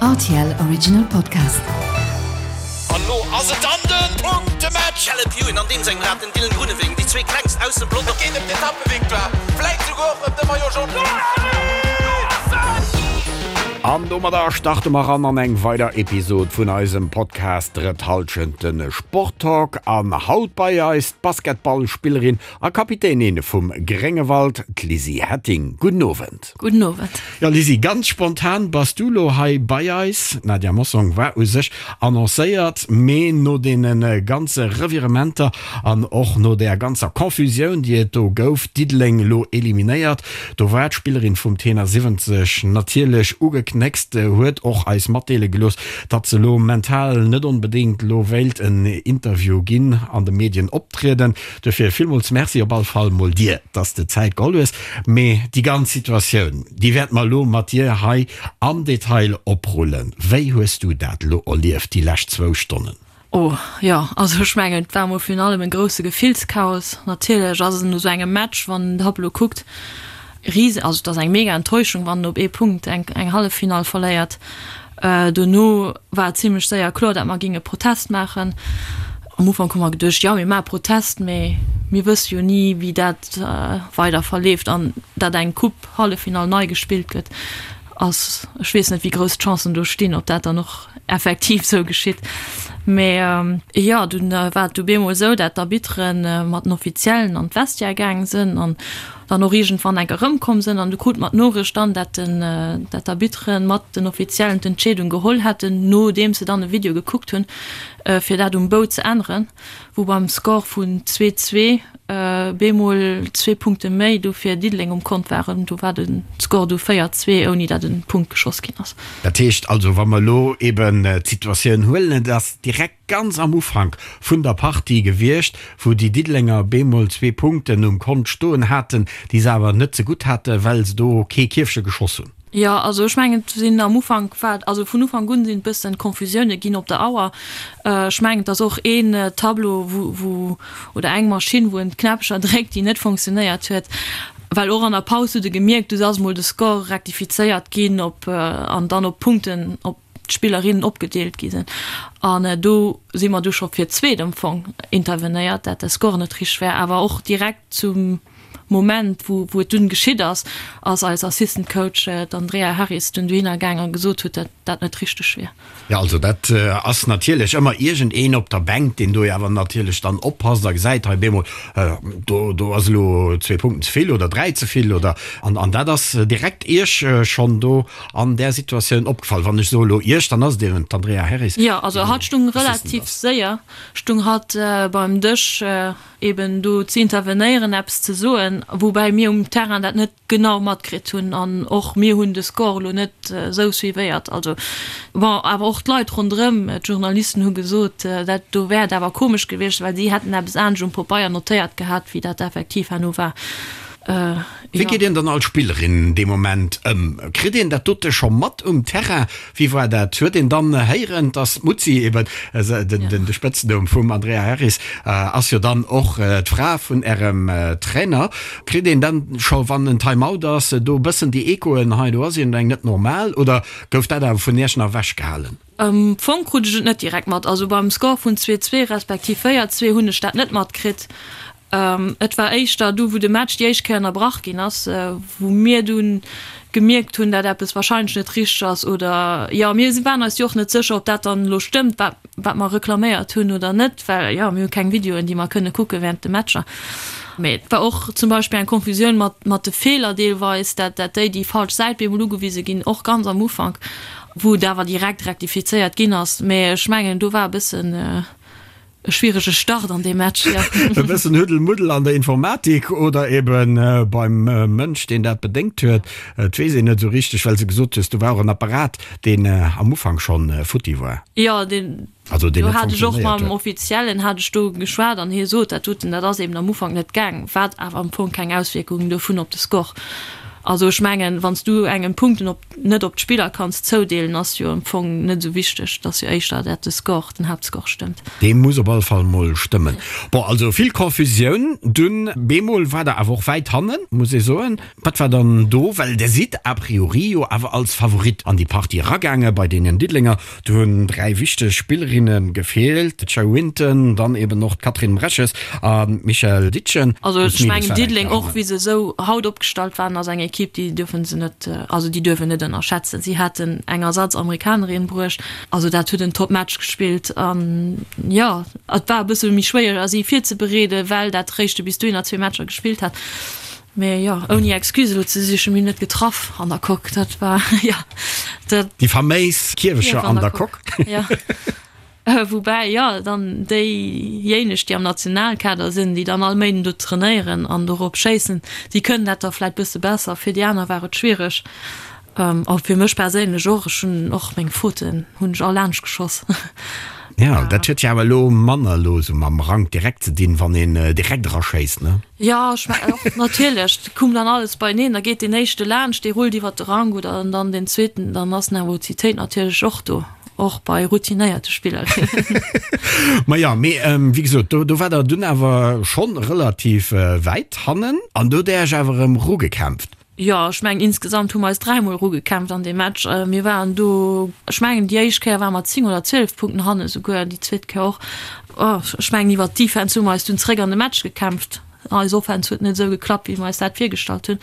Rtl Original Podcast. An lo ass et dann den Punktematch! Caleb Ewan an deem sengem Rad den Dylan Groenewegen, déi zwee klengst aus dem Pelotong. Et geet ëm d'Etappevictoire, vläit souguer och ëm de Maillot Jaune. An domadder starte mer ran an eng weider Episod vun eisem Podcast Drëtt Hallschent, de Sporttalk. An haut bei eis d'Basketballspillerin A Kapitänin vum Gréngewald, d'Lizzy Hetting. Gudden Owend. Gudden Owend. Jo Lizzy, ganz spontan bass du lo hei bei eis. D'Nadia Mossong war u sech annoncéiert, mee no deene ganze Revirementer an och no där ganzer Confusioun, déi et do gouf, Diddeleng lo eliminéiert, do war d'Spillerin vum Tenor 70 natierlech ugeknéckst, huet och eis matdeele gelooss, datt se lo mental net onbedéngt lo wéilt en Interview ginn, an de Medien optrieden. Duerfir villmools Merci op all Fall mol dir, dass de Zäit geholl hues. Mee déi ganz Situatioun, déi wäerte mer elo mat dir hei am Detail oprullen. Wéi hues du dat elo erlieft, déi lescht zwou Stonnen? Oh jo, also ech mengen, et war mol virun allem e grousse Gefillschaos. Natierlech ass et no esou engem Match, wann en den Tableau kuckt, Riesen, also et ass eng mega Enttäuschung, wann en op ee Punkt eng eng Halleffinall verléiert. Dono war et zimlech séier kloer, dat mer géinge Protest maachen. Am Ufank hu mer geduecht, jo mir maache Protest, mee mir wësse jo ni wéi dat weider verleeft an dat eng Coupe Halleffinall nei gespillt gëtt ass, ech weess net wéi grouss d'Chancen do stinn, ob dat dann och effektiv sou geschitt. Mee jo, dunn war et du bemol esou, dat d'Arbitteren mat den Offiziellen an d'Vestiaire gaang sënn an dann och iergendwann enk erëmkomm sënn an du krut mer d'Noricht dann, dat den, dat d'Arbitteren mat den Offiziellen d'Entscheedung geholl hätten, nodeems se dann e Video gekuckt hunn, fir dat um Bou ze änneren, wou beim Score vun 2, 2 bemol zwee Punkte méi du fir Diddeleng um Kont waren. Do war de Score du 4, 2, ouni dat e Punkt geschoss ginn ass. Dat heescht also, wa mer elo eben d'Situatioun huelen, et ass direkt ganz am Ufank vun der Partie gewiescht, wou déi Diddelenger bemol zwee Punkten um Kont stoen haten, déi se awer net zegutt haten, well se do kee Kierfche geschoss hunn. Jo, also ech mengen, et sinn am Ufank war, also vun Ufank un sinn et bëssen Confusioune ginn op der Auer. Ech mengen, et ass och een Tableau, wou, wou, oder eng Maschinn, wou en d'Knäppcher dréckt, déi net fonctionnéiert huet. Well och an der Paus hutt e gemierkt, du ass mol de Score rektifizéiert ginn op, an dann op Punkten, op d'Spillerinnen opgedeelt gi sinn. An do si mer du scho fir d'zweet am Fong intervenéiert, dat de Score net richteg war. Awer och direkt zum Moment, wou wou et dunn geschitt ass, ass eis Assistant Coach, d'Andrea Harris, dunn dohinner gaang a gesot huet, dat dat net richteg wier. Jo, also dat ass natierlech ëmmer iergendeen op der Bänk, deen do jo awer natierlech dann oppasst a gesäit, hei bemol, do do ass elo zwee Punkten ze vill oder dräi ze vill oder an an dat ass direkt Iech schonn do an där Situatioun opgefall? Wann ech soe lo Iech, dann ass et eben d'Andrea Harris, Jo, also hatt stung relativ séier, stung hatt beim Dësch eben do ze intervenéieren, eppes ze soen, woubäi mir um Terrain dat net genau matkritt hunn an och mir hunn de Score elo net esou suivéiert. Also bon, awer och d'Leit ronderëm, d'Journalisten hu gesot, dat do wär et awer komesch gewiescht, well si hätten eppes anescht um Popeier notéiert gehat, wéi dat effektiv herno war. Wéi geet een dann als Spillerin dee Moment ëm? Kritt een dat dote scho mat um Terrain? Wéi war dat? Huet een dann héieren, dass d'Mutzi eben, de Spëtznumm vum Andrea Harris ass jo dann och d'Fra vun Ärem Trainer, kritt een dann scho wann en Time-out ass, do e bëssen déi Echoen, hei do ass iergendeng net normal, oder gouf dat awer vun Iech nach ewechgehalen? Am Fong krut ech et net direkt mat. Also beim Score vun 2, 2 respektiv 4, 2 hunn ech dat net matkritt. Et war éischter du wou de Match déi éischt Kéier ënnerbrach ginn ass, wou mir dunn gemierkt hunn, dat eppes wahrscheinlech net richteg ass oder jo mir waren eis jo och net sécher, ob dat dann elo stëmmt wat wat mer reklaméiert hunn oder net, well jo mir hu keng Videoen déi mer kënne kucke während de Matcher. Mee et war och zum Beispill eng Confusioun mat mat de Feeler deelweis, dat dat déi déi falsch Säit bemol ugewise ginn, och ganz am Ufank, wou et awer direkt rektifizéiert ginn ass. Mee ech mengen do war e bëssen E schwierege Start an deem Match, jo. E bëssen Huddel-Muddel an der Informatik oder ebe beim Mënsch, deen dat bedéngt huet. Et weess een net esou richteg, well s de gesot hues, do war och en Apparat, deen am Ufank schonn futti war. Jo, deen, Also deen do net hat ech och funktionéiert mam huet. Offiziellen hat ech do geschwat an hie sot, dat doten, dat ass eben am Ufank net gaang, wat awer am Fong keng Auswierkungen dovun op de Score. Also ech mengen, wann s du engem Punkten op net op d'Spiller kanns zoudeelen, ass jo am Fong net esou wichteg. Et ass jo éischter dat de Score, den Haaptscore stëmmt. Dee muss op alle Fall mol stëmmen. Bon, also vill Confusioun dunn. Bemol war der awer och wäit hannen, muss ee soen. Wat war dann do? Well der sidd a priori jo awer als Favorit an déi Partie eragaange bei deenen Diddelenger. Do hunn 3 wichteg Spillerinne gefeelt, d'Shay Winton, dann eben och d'Catherine Mreches an d'Michèle Ditchen. Also ech mengen Diddeleng, och wéi se esou haut opgestallt waren, ass eng Ekipp, déi dierfe se net, also déi duerf een net ënnerschätzen. Si haten eng Ersatz-Amerikanerin bruecht, also dat huet en Top-Match gespillt an jo, et war e bësse méi schwéier si virzebereeden, well dat réischte bis dohinner zwee Matcher gespillt hat. Mee jo, ouni Excuse elo ze sichen, mir hunn net getraff an der Coque, dat war jo dat. Déi faméis Kierwecher an der Coque. Jo, woubäi jo dann déijéineg, déi am Nationalkader sinn, déi dann all Méinden do trainéieren an dorop schéissen, déi kënnen dat da vläit bësse besser. Fir déi aner war et schwiereg. A fir mech perséinlech och, ech hunn och meng Fauten hunn ech all laanscht geschoss. Jo, dat huet jo awer elo manner elo esou mam Rank direkt ze dinn, wann een direkt eraschéisst, ne? Jo, ech mengen och, natierlech, et koum dann alles beieneen, da geet deen éischte laanscht, dee rullt iwwert de Rank oder dann deen zweeten, dann ass d'Nervositéit natierlech och do, och bei routinéierte Spillerinnen. Maja, mee wéi gesot, do do war der dunn awer schonn relativ wäit hannen an do hutt Där Iech awer erëm erugekämpft. Jo, ech mengen insgesamt hu mer eis dräimol erugekämpft an deem Match. Mir waren do, ech mengen déi éischt Kéier ware mer 10 oder 12 Punkten hanne souguer, déi zweet Kéier och. Ech mengen iwwert d'Defense hu mer eis dunn zeréck an de Match gekämpft. Eis Offense huet net esou geklappt, wéi mer eis dat virgestallt hunn.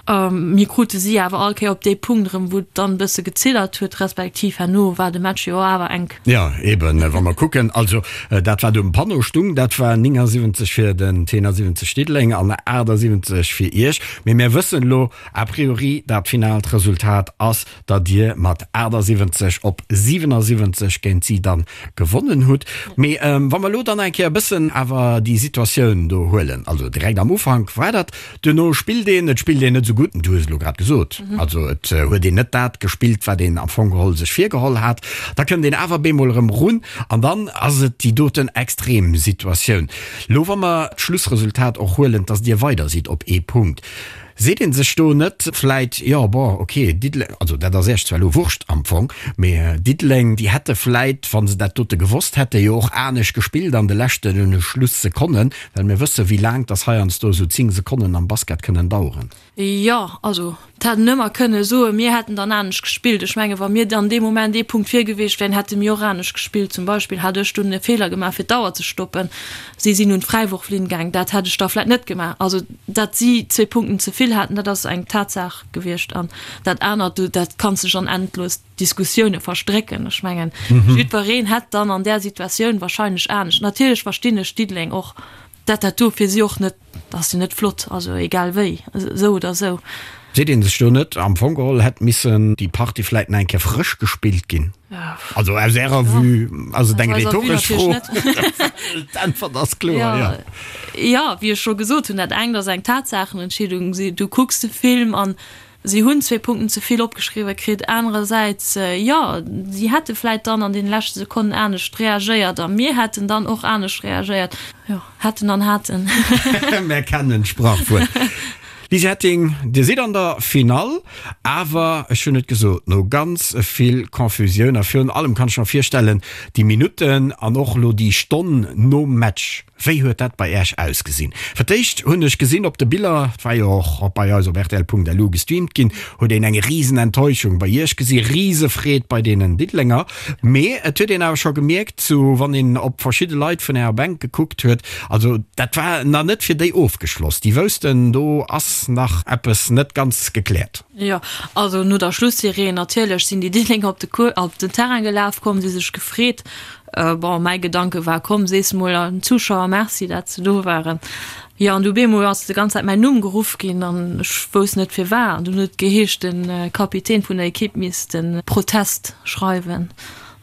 Mir krute si awer all Kéier op dee Punkt erëm, wou et dann e bësse geziddert huet, respektiv herno war de Match jo awer enk. Jo, eben, wa mer kucken, also dat wat um Panneau stung, dat war 79 fir den T71 Diddeleng an 78 fir Iech. Mee mär wëssen elo a priori, dat finaalt Resultat ass, datt Dir mat 78 op 77 géint si dann gewonnen hutt. Mee wa mer elo dann eng Kéier e bëssen awer déi Situatioun do huelen, also direkt am Ufank war dat, duerno spillt een, et spillt een net esou gutt, du hues et elo grad gesot, also et huet een net dat gespillt, wat een am Fong geholl sech virgeholl hat, da kënnt een awer bemol erëm erun an dann ass et déi doten extrem Situatioun. Lo wa mer d'Schlussresultat och huelen, dass Dir weider sidd op ee Punkt, seet ee sech do net vläit, jo bon, ok, Diddeleng, also dat ass Iech zwar elo Wurscht am Fong, mee Diddeleng, déi hätte vläit, wa se dat dote gewosst hätten, jo och anescht gespillt an de leschte Schlussekonnen, well mir wësse wéi laang dass heiansdo esou 10 Sekonnen am Basket kënnen daueren. Jo, also et hätt en ëmmer kënne soen, mir hätten dann anescht gespillt. Ech menge wa mir dann dee Moment ee Punkt vir gewiescht wären, hätte mir och anescht gespillt. Zum Beispill hat ech dunn e Feeler gemaach fir d'Auer ze stoppen. Si sinn un d'Fräiworflinn gaang, dat hätt ech da vläit net gemaach. Also dat si zwee Punkten ze vill haten, dat ass eng Tatsaach gewiescht. An dat anert, do dat kanns dech an endlos Diskussioune verstrécken. Ech mengen jiddwereen hätt dann an där Situatioun wahrscheinlech anescht. Natierlech verstinn ech Diddeleng och, dat dat do fir si och net Dat ass jo net flott, also egal wéi, esou oder esou. Seet een sech do net, am Fong geholl hätt missen déi Partie vläit nach eng Kéier frësch gespillt ginn? Also aus Ärer Vue ass et eng rhetoresch Fro, d'Äntwert ass kloer, jo. Jo, wéi ech scho gesot hunn, dat engt ass eng Tatsaachenentscheedung, du kucks de Film an Si hunn zwee Punkten ze vill opgeschriwwe kritt. Anerersäits, jo, si hätte vläit dann an deene leschte Sekonnen anescht reagéiert a mir hätten dann och anescht reagéiert. Jo, hätten an haten. Mär kennen d'Sprachwuert. Lise Hetting, Dir sidd an der Finall, awer ech hunn et gesot, no ganz vill Confusioun a virun allem kann ech mer virstellen, déi Minutten an och elo déi Stonn nom Match, Wéi huet dat bei Äech ausgesinn? Fir d'éischt hunn ech gesinn op de Biller, et war jo och bei eis op rtl.lu gestreamt ginn, huet een eng risen Enttäuschung bei Iech gesi, rise Freed bei deenen Diddelenger. Mee et huet een awer scho gemierkt, sou wann een op verschidde Leit vun Ärer Bänk gekuckt huet, also dat war nach net fir déi ofgeschloss. Déi woussten, do ass nach eppes net ganz gekläert. Jo, also no der Schlussireen natierlech sinn déi Diddelenger op de Cours, op den Terrain gelaf komm, si sech gefreet. Bon, mäi Gedanke war, komm, sees mol den Zuschauer Merci, dat se do waren. Jo, an du bemol ass de ganz Zäit mäin Numm geruff ginn an ech wousst net firwat. An dunn huet et geheescht, de Kapitän vun der Ekipp misst de Protest schreiwen.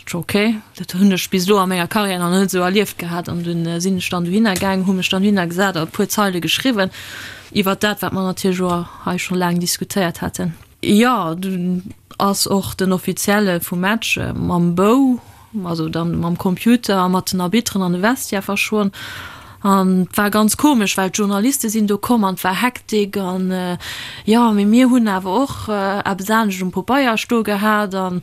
Ech, ok, dat hunn ech bis elo a menger Karriär nach net esou erlieft gehat. An dunn sinn ech dann dohinner gaang, hu mech dann dohinner gesat a e puer Zeile geschriwwen iwwert dat, wat mer natierlech och hei scho laang diskutéiert haten. Jo, dunn ass och den Offizielle vum Match mam Bou, also dann mam Computer a mat den Arbitteren an de Vestiaire verschwonn. An et war ganz komesch, well d'Journaliste sinn do komm an et war Hektik an jo, mee mir hunn awer och eppes anescht um Popeier stoe gehat an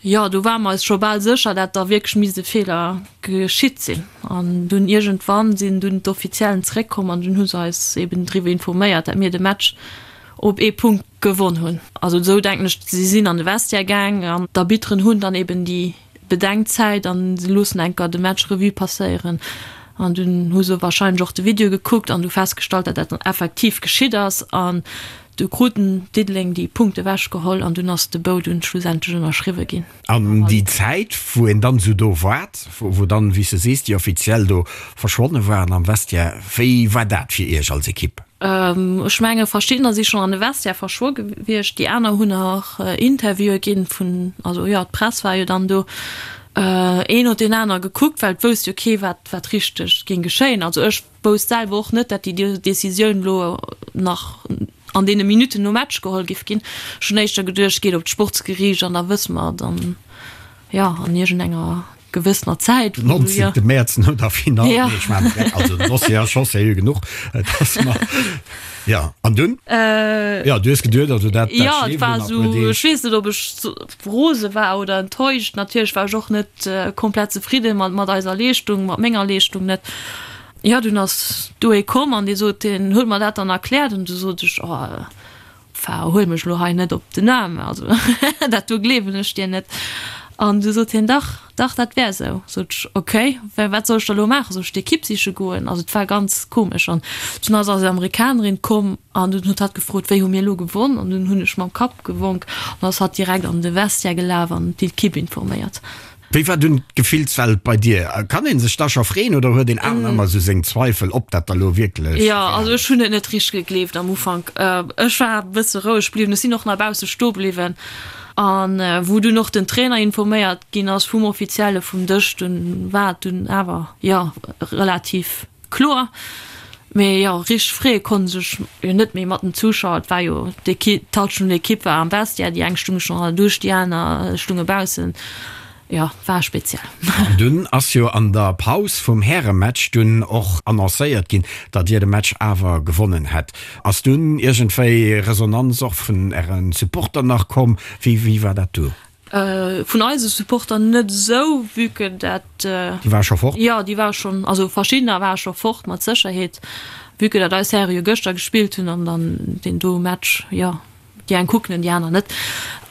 jo, do ware mer eis scho bal sécher, dat da wierklech misst e Feeler geschitt sinn. An dunn iergendwann sinn dunn d'Offiziellen zeréckkomm an dunn hu se eis eben driwwer informéiert, dat mir de Match op ee Punkt gewonn hunn. Also esou denken ech, si sinn an de Vestiaire gaang an d'Arbitteren hunn dann eben déi Bedenkzäit an se loossen enker de Match Revue passéieren an dunn hu se wahrscheinlech och de Video gekuckt an du festgestallt, dat dat dann effektiv geschitt ass an du kruten Diddeleng déi Punkte ewechgeholl an dunn ass de Bou dunn schlussendlech ënnerschriwwe ginn. An déi Zäit, wou een dann esou do waart, wou dann, wéi s de sees, déi Offiziell do verschwonne waren am Vestiaire, wéi war dat fir Iech als Ekipp? Ech menge verschiddener si schonn an de Vestiaire verschwo gewiescht, déi aner hunn nach Interviewe ginn vun, also jo, d'Press war jo dann do. Een huet deen aner gekuckt, well et wousst jo kee wat wat richteg géing geschéien. Also ech wousst selwer och net, dat déi Decisioun elo nach an deene Minutten nom Match geholl giff ginn. Ech hunn éischter geduecht, geet op d'Sportsgeriicht an da wësse mer dann, jo, an iergendenger gewëssener Zäit. Den 19. Mäerz no der Finall, nee, ech maachen direkt, also den Dossier ass scho seriö genuch, dass mer, jo, an dunn? Jo, du hues geduet, also dat, dat Jo, et war esou, ech weess net, ob ech rose war oder enttäuscht. Natierlech war ech och net komplett zefridde mat, mat eiser Leeschtung, mat menger Leeschtung net. Jo, dunn ass do ee komm an dee sot, deen huet mer dat dann erkläert an du sot ech, oh, Enfin, huel mech elo hei net op den Aarm, also dat do gleewen ech dir net. An du sot hien, dach, dach, dat wär esou. Sot ech, ok, wat soll ech da elo maachen? Soll ech d'Ekipp siche goen? Also et war ganz komesch. An dunn ass eis Amerikanerin komm an dunn huet hatt gefrot, wéi hu mir elo gewonn? An dunn hunn ech mam Kapp gewonk an ass hatt direkt an de Vestiaire gelaf an d'Ekipp informéiert. Wéi war dunn d'Gefillswelt bei dir? Kann een sech da scho freeën oder huet een awer ëmmer esou seng Zweifel, ob dat da lo wierklech Jo, also ech hunn et net richteg gegleeft am Ufank. Ech war e bësse roueg bliwwen, ech sinn och nach bausse stoe bliwwen. An wou dunn och den Trainer informéiert ginn ass vum Offizielle vum Dësch, dunn war et dunn awer, jo, relativ kloer. Mee jo, richteg freeë konnt ech sech jo net méi mat den Zuschauer. Et war jo d'Equipe, d'Hallschent vun der Equipe war am Vestiaire, déi eng stunge schonn an der Dusch, déi aner stunge baussen. Jo, war speziell. An dunn ass jo an der Paus vum Härematch dunn och annoncéiert ginn, datt Dir de Match awer gewonnen hätt. Ass dunn iergendwéi Resonanz och vun Äre Supporter nach komm? Wéi war dat do? Vun eise Supporter net esou, vue que dat. Déi ware scho fort? Jo, déi ware schonn, also verschiddener ware scho fort, mat Sécherheet, vue que dat eis Häre jo gëschter gespillt hunn an dann deen do Match, jo, déi eng kucken en, déi aner net.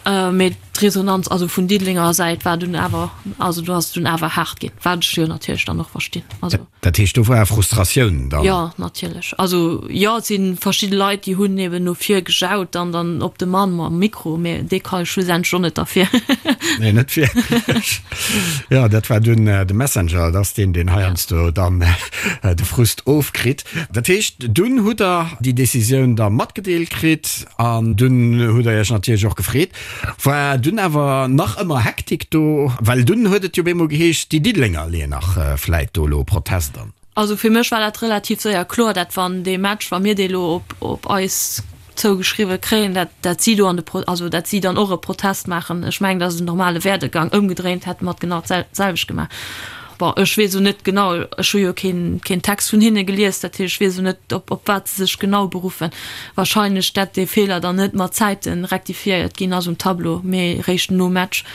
Mee d'Resonanz, also vun Diddelenger Säit war dunn awer, also do ass et dunn awer haart ginn, wat ech jo natierlech dann och verstinn, also. Dat heescht, do war Frustratioun dann? Jo, natierlech. Also jo, et si verschidde Leit, déi hunn eben no vir gejaut an dann op de Mann mam Mikro, mä dee ka schlussendlech och net derfir. Nee, net wierklech. Jo, dat war dunn de Messenger, dat ass deen, deen heiansdo dann de Frust ofkritt. Dat heescht, dunn hutt Der déi Decisioun da matgedeelt kritt an dunn hutt Der Iech natierlech och gefreet. War dunn awer nach ëmmer Hektik do, well dunn huet et jo bemol geheescht, déi Diddelenger leeën nach vläit do elo Protest an. Also fir mech war dat relativ séier kloer, dat wann dee Match, wa mir dee lo op op eis zougeschriwwe kréien, dat dat si do an de Pro, also dat si dann och e Protest maachen. Ech mengen, dat ass en normale Werdegang. Ëmgedréint hätte mer et genau d'selwecht gemaach. Bon, ech weess elo net genau, ech hu jo keen, keen Text vun hinne gelies, dat heescht, ech weess elo net, op, op wat se sech genau beruffen. Wahrscheinlech, dat dee Feeler dann net mat Zäite rektifiéiert ginn ass um Tableau, mee réischt nom Match.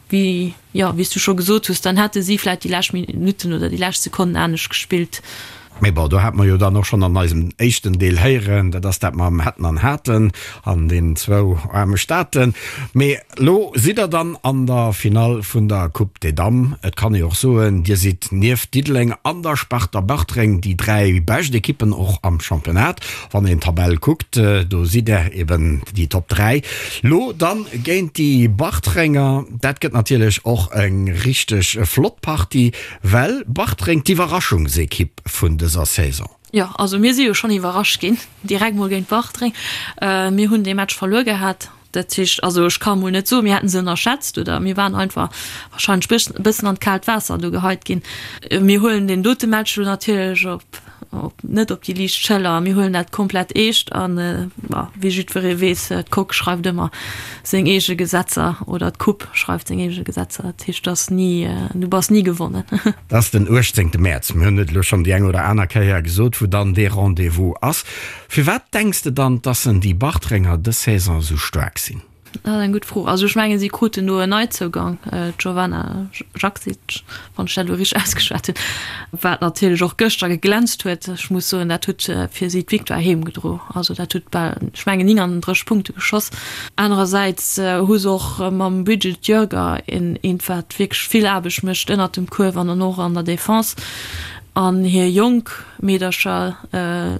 Wéi, jo, wéi s du scho gesot hues, dann hätte si vläicht déi lescht Minutten oder déi lescht Sekonnen anescht gespillt. Mee bon, do hate mer jo dann och schonn an eisem éischten Deel héieren, dat ass dat mam hätten an haten an deenen zwou aarme Staaten. Mee elo sidd der dann an der Finall vun der Coupe des Dames. Et kann ee och soen, Dir sidd nieft Diddeleng an der Sparta Bartreng déi 3 bescht Ekippen och am Championnat. Wann een d'Tabell kuckt, do sidd der eben déi Top 3. Lo dann géint déi Bartrenger, dat gëtt natierlech och eng richteg flott Partie. Well Bartreng d'Iwwerraschungsekipp vun dëser Saison. Jo, also mir si jo schonn iwwerrascht ginn, direkt mol géint Bartreng. Mir hunn dee Match verluer gehat. Dat heescht, also ech ka mol net soen, mir hätten se ënnerschätzt oder mir waren einfach warscheinlech e bëssen an d'kaalt Waasser do geheit ginn. Mir huelen deen dote Match elo natierlech op. op, net op déi liicht Schëller. Mir huelen dat komplett eescht an, wéi jiddweree weess, d'Coque schreift ëmmer seng eege Gesetzer oder d'Coupe schreift seng eege Gesetzer. Dat heescht, dass ni, du bass ni gewonnen. Dat ass den 18. Mäerz. Mir hunn et elo schonn déi eng oder aner Kéier gesot, wou dann dee Rendez-vous ass. Firwat denks de dann, dass en déi Bartrenger dës Saison esou staark sinn? Dat ass eng gutt Fro. Also ech mengen, si kruten do en Neizougang, d'Jovana Jaksic, wann ech dat elo richteg ausgeschwat hunn, wat natierlech och gëschter geglänzt huet. Ech muss soen, dat huet fir si d'Victoire heem gedro. Also dat huet bal, ech mengen, 39 Punkte geschoss. Anerersäits hu se och mam Bridget Jörger een, eent wat wierklech vill Aarbecht mécht ënnert dem Kuerf an dann och an der Defense. An hir jonk Meedercher,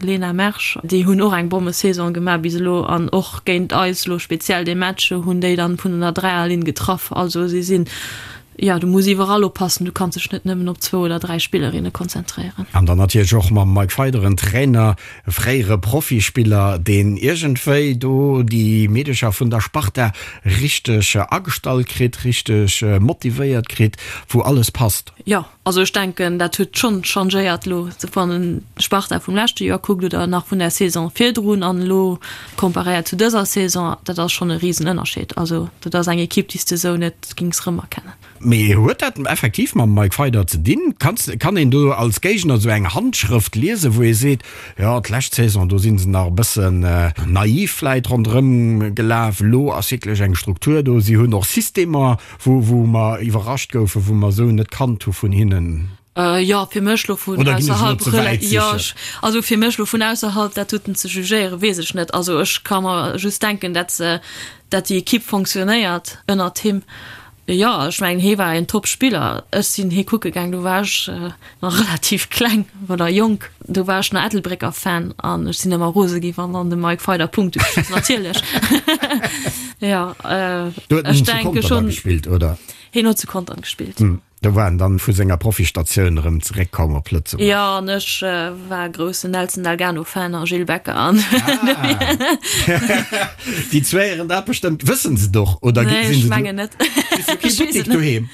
Lena Mersch, déi hunn och eng Bommesaison gemaach bis elo an och géint eis elo speziell dee Match hunn déi dann vun der Dräierlinn getraff. Also si sinn, jo, du muss iwwerall oppassen, du kanns dech net nëmmen op zwou oder dräi Spillerinne konzentréieren. An dann natierlech och mam Mike Feider en Trainer, e fréiere Profispiller, deen iergendwéi do déi Meedecher vun der Sparta richteg agestallt kritt, richteg motivéiert kritt, wou alles passt. Jo, Also ech denken, dat huet schonn changéiert elo, wann en d'Sparta vum leschte Joer kuckt oder nach vun der Saison virdrun an elo comparéiert zu dëser Saison, dat ass schonn e Risenënnerscheed. Also dat ass eng Ekipp, déi s de esou net gings rëmerkennen. Mee huet dat effektiv mam Mike Feider ze dinn? Kanns, kann een do als Géigner esou eng Handschrëft liesen, wou ee seet, jo d'lescht Saison, do si se nach e bëssen naiv vläit ronderëm gelaf, elo ass wierklech eng Struktur do, si hunn och Systemer, Wou, wou mer iwwerrascht goufen, wou mer esou net kannt hu vun hinnen. Jo, fir mech lo vun Oder ginn ech elo ausserhalb ze wäit jo, sichen? ech, also fir mech lo vun ausserhalb dat doten ze jugéieren, weess ech net. Also ech ka mer just denken, dat se, dat déi Ekipp fonctionnéiert ënnert him. Jo, ech mengen hee war een Top-Spiller. Ech sinn hee kucke gaang, do war ech nach relativ kleng oder jonk, do war ech nach Ettelbrécker Fan an ech sinn ëmmer rose gi wann dann de Mike Feider Punkte geschoss natierlech. Jo, Do huet en ech zu denke Contern da schonn. gespillt, oder? Hien huet zu Contern gespillt. Do war en dann vu senger Profistatioun erëm zeréckkomm op Lëtzebuerg. Jo, an ech war groussen Nelson Delgano Fan a Gilles Becker an. Déi zwee héieren dat bestëmmt. Wëssen se et och oder Nee, sinn ech se do? mengen net. Kriss du kee Buttek doheem?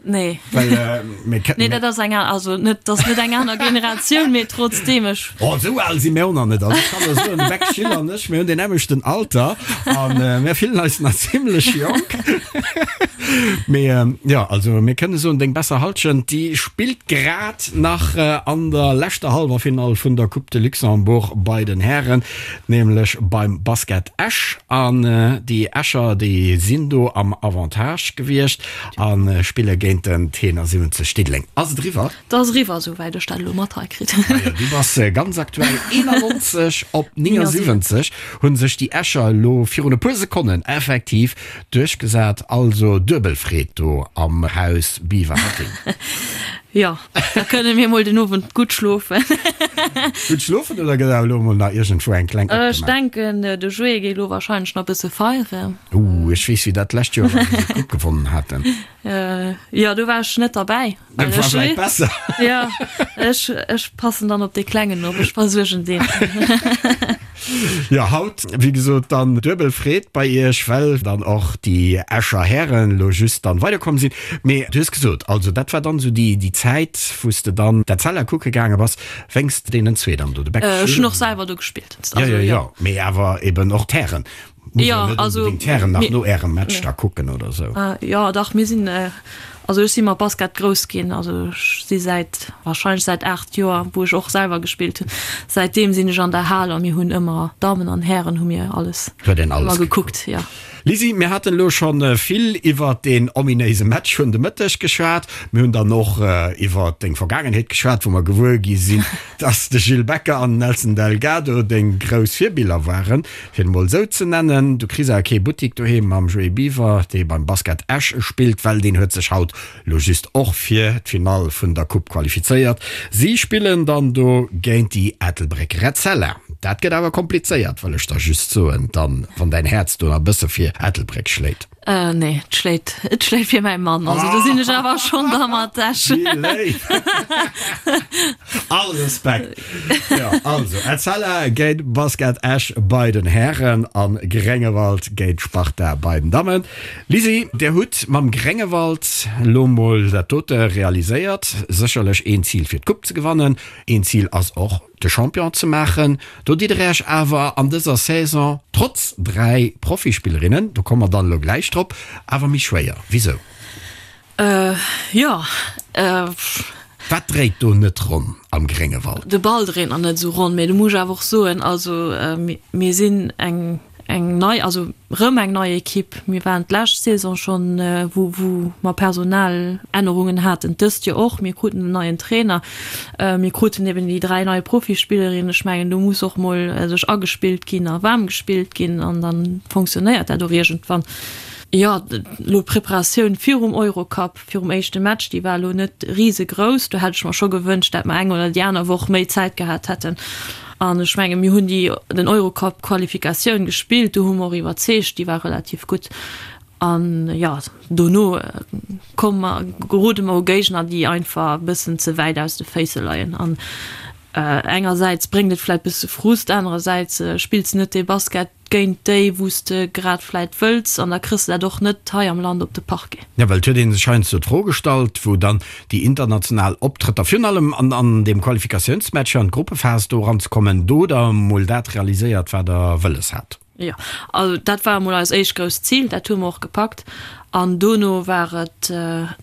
Nee. Well, äh, mir ke- Nee, dat ass eng an, also net, dat ass net eng aner Generatioun, mee trotzdem, ech. Oh, esou al si mir och nach net. Also ech kann der soen, de Beck Gilles an ech, mir hunn deen nämmlechten Alter an äh, mir fillen eis nach zimlech jonk. Mee äh, jo, also mir kënne soen, deng besser Halschent, déi spillt grad nach äh, an der leschter Hallwerfinall vun der Coupe de Luxembourg bei den Hären, nämlech beim Basket Esch. An äh, déi Escher, déi sinn do am Avantage gewiescht. A spille géint den T71 Diddeleng. Ass et eriwwer? Et ass eriwwer, esouwäit ech dat elo mat hei kritt. Majo, du bass ganz aktuell. 91 op 79 hu sech déi Escher elo virun e puer Sekonnen effektiv duerchgesat. Also duebel Freed do am Haus Biwer-Hetting. Jo, da kënne mir mol den Owend gutt schlofen. Gutt schlofen oder gëtt awer elo mol nach iergendwou eng kleng Ech opgemaach? denken, de Joé geet elo warscheinlech nach e bësse feieren. Ooh, ech weess wéi dat d'lescht Joer war, wou se d'Coupe gewonnen haten. Jo, do war ech net derbäi. Dat war vläicht besser. Jo, ech, ech passen dann op dee Klengen op, ech versuergen deen. Jo, haut, wéi gesot, dann duebel Freed bei iech, well dann och déi Escher Hären elo just dann weiderkomm sinn. Mee du hues gesot, also dat war dann esou déi, déi Zäit, wou s de dann d'Etzella kucke gaange bass, wéinst deenen zwee dann do, de Beck Ech hunn och selwer do gespillt. Jo, jo, jo, mee awer eben och d'Hären. Muss Ja, net also, unbedingt d'Hären nach mir- no ärem Match da kucken oder sou. Ah, jo, dach, mir sinn, also ech si mat Basket grouss ginn, also ech si säit, wahrscheinlech säit 8 Joer, wou ech och selwer gespillt hunn, säitdeem sinn ech an der Hal a mir hunn ëmmer, Dammen an Hären hu mir alles Huet een alles ëmmer gekuckt, jo. Lisi, mir haten elo scho vill iwwert deen ominéise Match vun de Mëtteg geschwat. Mir hunn dann och iwwert deng Vergaangenheet geschwat, wou mer gewuer gi sinn, dass de Gilles Becker an den Nelson Delgado deng grouss Virbiller waren. Fir et emol esou ze nennen, du kriss awer kee Buttik doheem mam Joé Biwer, dee beim Basket Esch spillt, well deen huet sech haut lo just och fir d'Finall vun der Coupe qualifizéiert. Si spillen dann do géint déi Ettelbréck Etzella. Dat gëtt awer komplizéiert, wëll ech der just soen, dann, wann däin Häerz do nach e bësse fir Ettelbréck schléit. Nee, et schléit, et schléit fir mäi Mann. Also do sinn ech awer schonn da mat Esch. Wéi léif! All Respekt! Jo, also Etzella géint Basket Esch bei den Hären an Gréngewald géint Sparta bei den Dammen. Lisi, dir hutt mam Gréngewald lo mol dat dote realiséiert. Sécherlech een Zil fir d'Coupe ze gewannen, een Zil ass och de Champion ze maachen. Do ditt der Iech awer an dëser Saison, trotz 3 Profispillerinnen, do komme mer dann elo gläich drop, awer méi schwéier. Wisou? Jo. Wat dréit do net ronn am Gréngewald? De Ball dréit nach net esou ronn, mee do muss ech awer och soen, also mir sinn eng eng nei, also rëm eng nei Ekipp. Mir waren d'lescht Saison schonn, wou wou mer Personalännerungen haten, dëst Joer och. Mir kruten en neien Trainer, mir kruten eben déi 3 nei Profispillerinnen. Ech mengen, do muss och mol sech agespillt ginn a waarm gespillt ginn an da fonctionnéiert dat och iergendwann. Jo, elo d'Preparatioun virum Eurocup, virum éischte Match, déi war elo net risegrouss. Do hätt ech mer scho gewënscht, dat mer eng oder déi aner Woch méi Zäit gehat hätten. An ech menge mir hunn déi den Eurocup-Qualifikatioun gespillt, do hu mer och iwwerzeegt, déi war relativ gutt. An jo, dono komme mer, gerode mer u Géigner, déi einfach e bëssen ze wäit aus de Féisse leien. An engersäits bréngt et vläicht bësse Frust, anerersäits spills de net dee Basket, géint déi wou s de grad vläit wëlls an da kriss de dat och net hei am Land op de Parquet. Jo, well et huet ee sech heiansdo d'Fro gestallt, wou dann déi international Optrëtter, virun allem an an deem Qualifikatiounsmatch an d'Gruppephas do eranzekommen, do der emol dat realiséiert, wat der wëlles hat. Jo, also dat war emol eist éischt grousst Zil, dat hu mer och gepackt an dono war et,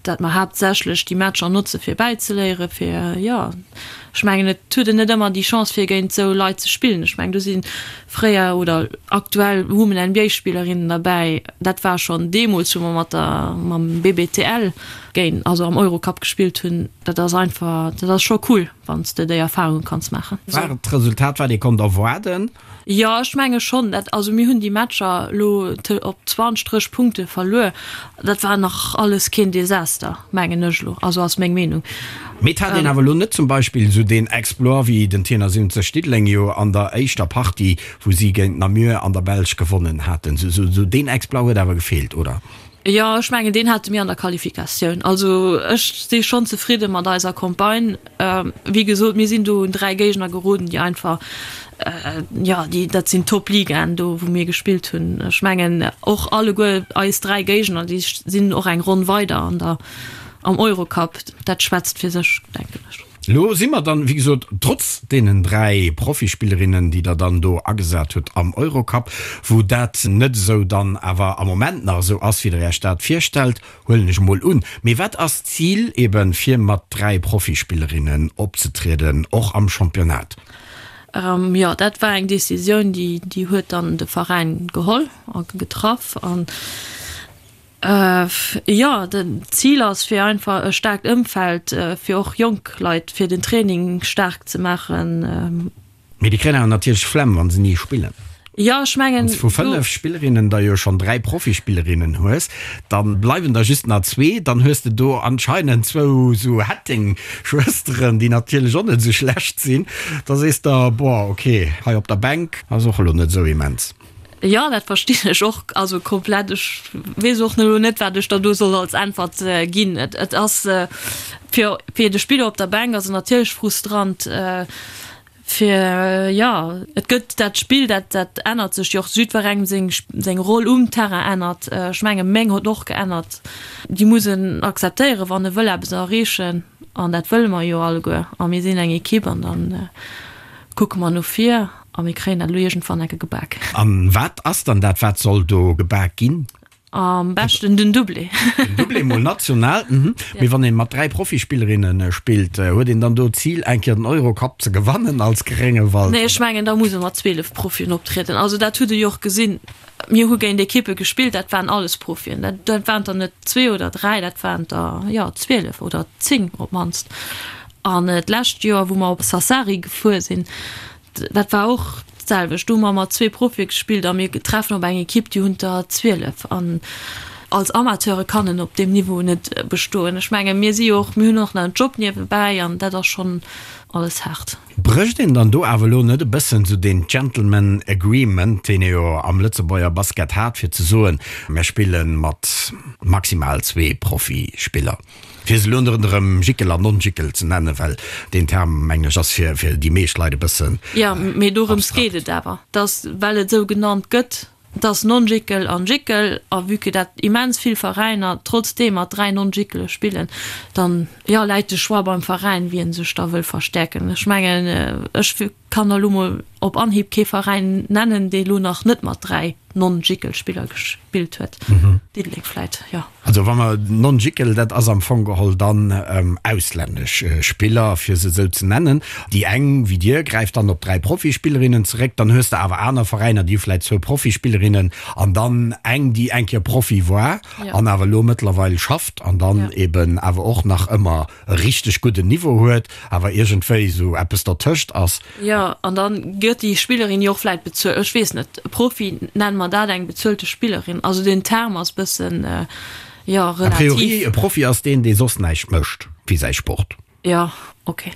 dat mer haaptsächlech déi Matcher notze fir bäizeléieren, fir, jo, ech mengen et huet een net ëmmer déi Chance fir géint esou Leit ze spillen. Ech mengen do si Fréier oder aktuell hu mer NBA-Spillerinnen derbäi. Dat war schonn deemools, wou mer mat der, mam BBTL géint, also am Eurocup gespillt hunn. Dat ass einfach, dat ass scho cool, wann s de déi Erfarunge kanns maachen. War et d'Resultat, wat ee konnt erwaarden? Jo, ech menge schonn. Dat, also mir hunn déi Matcher elo op 20, 30 Punkte verluer. Dat war nach alles keen Desaster, mengen ech elo, also ass meng Meenung. Mee et hat een awer elo net zum Beispill esou deen Exploit wéi den Tenor 70 Diddeleng jo an der éischter Partie, wou si géint Namur an der Belsch gewonnen haten. Esou deen Exploit huet awer gefeelt, oder? Jo, ech mengen deen hate mir an der Qualifikatioun. Also ech si schonn zefridde mat eiser Campagne. Wéi gesot, mir sinn do un 3 Géigner geroden, déi einfach, jo, déi, dat sinn Top-Ligaen do, wou mir gespillt hunn. Ech mengen och alleguer eis 3 Géigner, déi sinn och eng Ronn weider an der, am Eurocup. Dat schwätzt fir sech, denken ech. Elo si mer dann, wéi gesot, trotz deenen 3 Profispillerinnen, déi Der dann do agesat hutt am Eurocup, wou dat net esou dann awer am Moment nach esou ass, wéi Der Iech dat virstellt, huelen ech emol un. Mee wat ass d'Zil eben, fir mat 3 Profispillerinnen opzetrieden, och am Championnat? Jo, dat war eng Decisioun, déi, déi huet dann de Veräin geholl a getraff. An Jo, den Zil ass fir einfach e staarkt Ëmfeld fir och jonk Leit fir den Training staark ze maachen. Mee déi kréien awer natierlech Flemm wann se ni spillen. Jo, ech mengen Wann s vu 5 Spillerinnen der jo schonn 3 Profispillerinnen hues, dann bleiwen der just nach zwee. Dann hues de do anscheinend zwou sou Hetting-Schwësteren, déi natierlech och net esou schlecht sinn. Da sees der, boah, ok, hei op der Bänk ass och elo net esou immens. Jo, dat verstinn ech och, also komplett. Ech weess och elo net, wat ech der do soll als Äntwert ginn. Et ass fir fir de Spiller op der Bänk ass et natierlech frustrant, fir, jo, et gëtt dat Spill, dat dat ännert sech jo och, jiddwerengem seng seng Roll um Terrain ännert. Ech menge meng huet och geännert. Déi muss en akzeptéieren, wann e wëll eppes erreechen, an dat wëlle mer jo alleguer. A mir sinn eng Ekipp an dann kucke mer no vir. A mir kréien dat elo iergendwann enke gebak. A wat ass dann dat, wat soll do gebak ginn? Am beschten den Doublé. Den Doublé mol national, mhm. Mee wann een mat 3 Profispillerinne spillt, huet een dann do d'Zil eng Kéier den Eurocup ze gewannen als Gréngewald? Nee, ech mengen da muss e mat 12 Profien optrieden. Also dat hutt e jo och gesinn. Mir hu géint Ekippe gespillt, dat waren alles Profien. Dat dat waren der net zwee oder dräi, dat waren der, jo, 12 oder 10 op d'mannst. An d'lescht Joer, wou mer op Sassari gefuer sinn, Dat war och d'selwecht. Do hu mer mat zwee Profie gespillt a mir treffen op eng Ekipp, déi hunn der 12. An. Als Amateure kann en op deem Niveau net bestoen. Ech menge mir si jo och, mir hunn och nach en Job niewebäi an dat ass schonn alles haart. Brécht een dann do awer elo net e bëssen esou deen Gentleman Agreement, deen ee jo am Lëtzebuerger Basket hat, fir ze soen, mir spille mat maximal zwee Profispiller, fir se elo net erëm Jickel an Non-Jickel ze nennen, well deen Term, mengen ech, ass fir déi meescht Leit e bëssen abstrakt. Jo, mee dorëms geet et awer, dass, well et esou genannt gëtt, Et ass Non-Jickel an Jickel, a vue que dat immens vill Veräiner trotzdeem mat 3 Non-Jickele spillen, dann, jo, läit de Choix beim Veräin, wien sech da wëll verstäerken. Ech mengen, ech kann der elo mol op Anhieb kee Veräin nennen, dee elo nach net mat 3 Non-Jickel-Spiller gespillt huet. Diddeleng vläit, jo. Also wa mer Non-Jickel, dat ass am Fong geholl dann auslännesch Spiller, fir se esou ze nennen. Déi eng, wéi dir, gräift dann op 3 Profispillerinnen zeréck. Dann hues de awer aner Veräiner, déi hu vläicht zwou Profispillerinnen an dann eng, déi eng Kéier Profi war an awer elo mëttlerweil schafft an dann eben awer och nach ëmmer e richteg gudden Niveau huet, awer iergendwéi esou eppes dertëscht ass. Jo, an da gëtt déi Spillerin jo och vläit bezuelt, ech weess net, Profi, nenne mer dat eng bezuelte Spillerin? Also den Term ass bëssen, jo, relativ. A priori, e Profi ass deen, dee soss näischt mécht wéi säi Sport. Jo, ok.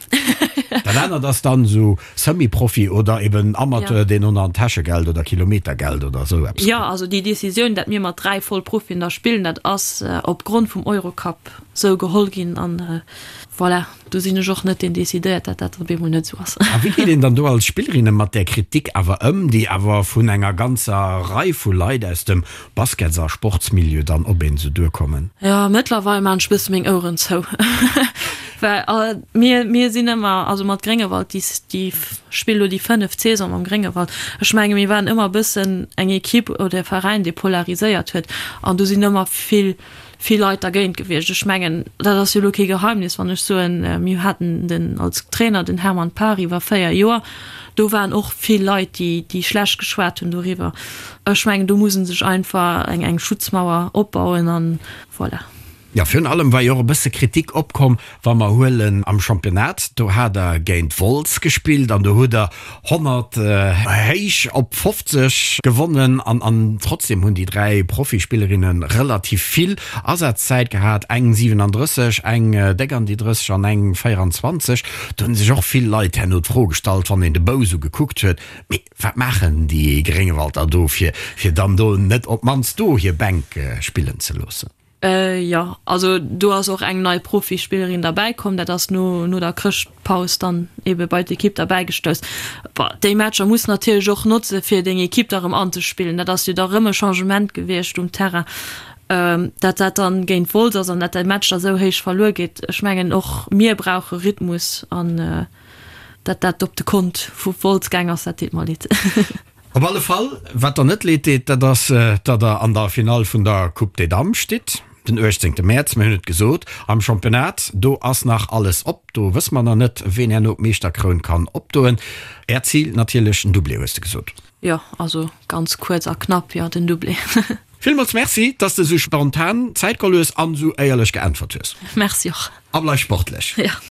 Dat anert ass dann esou Semi-Profi oder eben Amateur, deen och nach en Täschegeld oder Kilometergeld oder esou eppes kritt. Jo, also déi Decisioun, dat mir mat 3 Vollprofien da spillen, dat ass opgrond vum Eurocup esou geholl ginn an voilà. Do sinn ech och net deen decidéiert, dat dat op eemol net esou ass. A wéi geet een dann do als Spillerinne mat där Kritik awer ëm, déi awer vun enger ganzer Rei vu Leit aus dem Baskets a Sportsmilieu dann op een esou duerkommen? Jo, mëttlerweil maan ech bësse meng Oueren zou, well mir, mir sinn ëmmer, also mat Gréngewald, déi, déi spille lo déi fënneft Saison mam Gréngewald, ech menge mir waren ëmmer e bëssen eng Equipe oder e Veräin, dee polariséiert huet an do sinn ëmmer vill, vill Leit dergéint gewiescht. Ech mengen, dat ass jo elo kee Geheimnis, wann ech soen, mir haten den als Trainer den Hermann Paar iwwer 4 Joer. Do waren och vill Leit, déi, déi schlecht geschwat hunn doriwwer. Ech mengen, do muss e sech einfach eng, eng Schutzmauer opbauen an voilà. Jo, virun allem war jo och e bësse Kritik opkomm, wa mer huelen am Championnat, do hat der géint Wolz gespillt an do hutt der 100 héich op 50 gewonnen an an trotzdem hunn déi 3 Profispillerinne relativ vill Asazzäit gehat, eng 37, eng déck an déi 30 an eng 24. Do hunn sech och vill Leit herno d'Fro gestallt, wann een de Bou sou gekuckt huet, mee wat maachen déi Gréngewalder do fir fir dann do net op d'mannst do hir Bänk spillen ze loossen? Jo, also do ass och eng nei Profispillerin derbäi komm. Dat ass no no der Chrëschtpaus dann ebe bei d'Ekipp derbäi gestouss. Bon, déi Matcher muss natierlech och notze fir deng Ekipp da rëm anzespillen. Dat ass jo da rëm e Changement gewiescht um Terrain. Dat dat dann géint Wolz ass an dat de Match da sou héich verluer geet, ech mengen och mir brauche Rhythmus an dat dat op de Kont vu Wolz gaang ass, dat deet mer leed. Op alle Fall, wat der net leed deet, dat ass, datt der an der Finall vun der Coupe des Dames stitt, den 18 Mäerz. Mir hunn et gesot, am Championnat, do ass nach alles op. Do wësse mer nach net, ween herno d'Meeschterkroun kann opdoen. Äert Zil natierlech den Doublé, hues de gesot. Jo, also ganz kuerz a knapp, jo, den Doublé. Villmools Merci, dass de sou spontan Zäit geholl hues an sou éierlech geäntwert hues. Merci och. A bleif sportlech. Jo.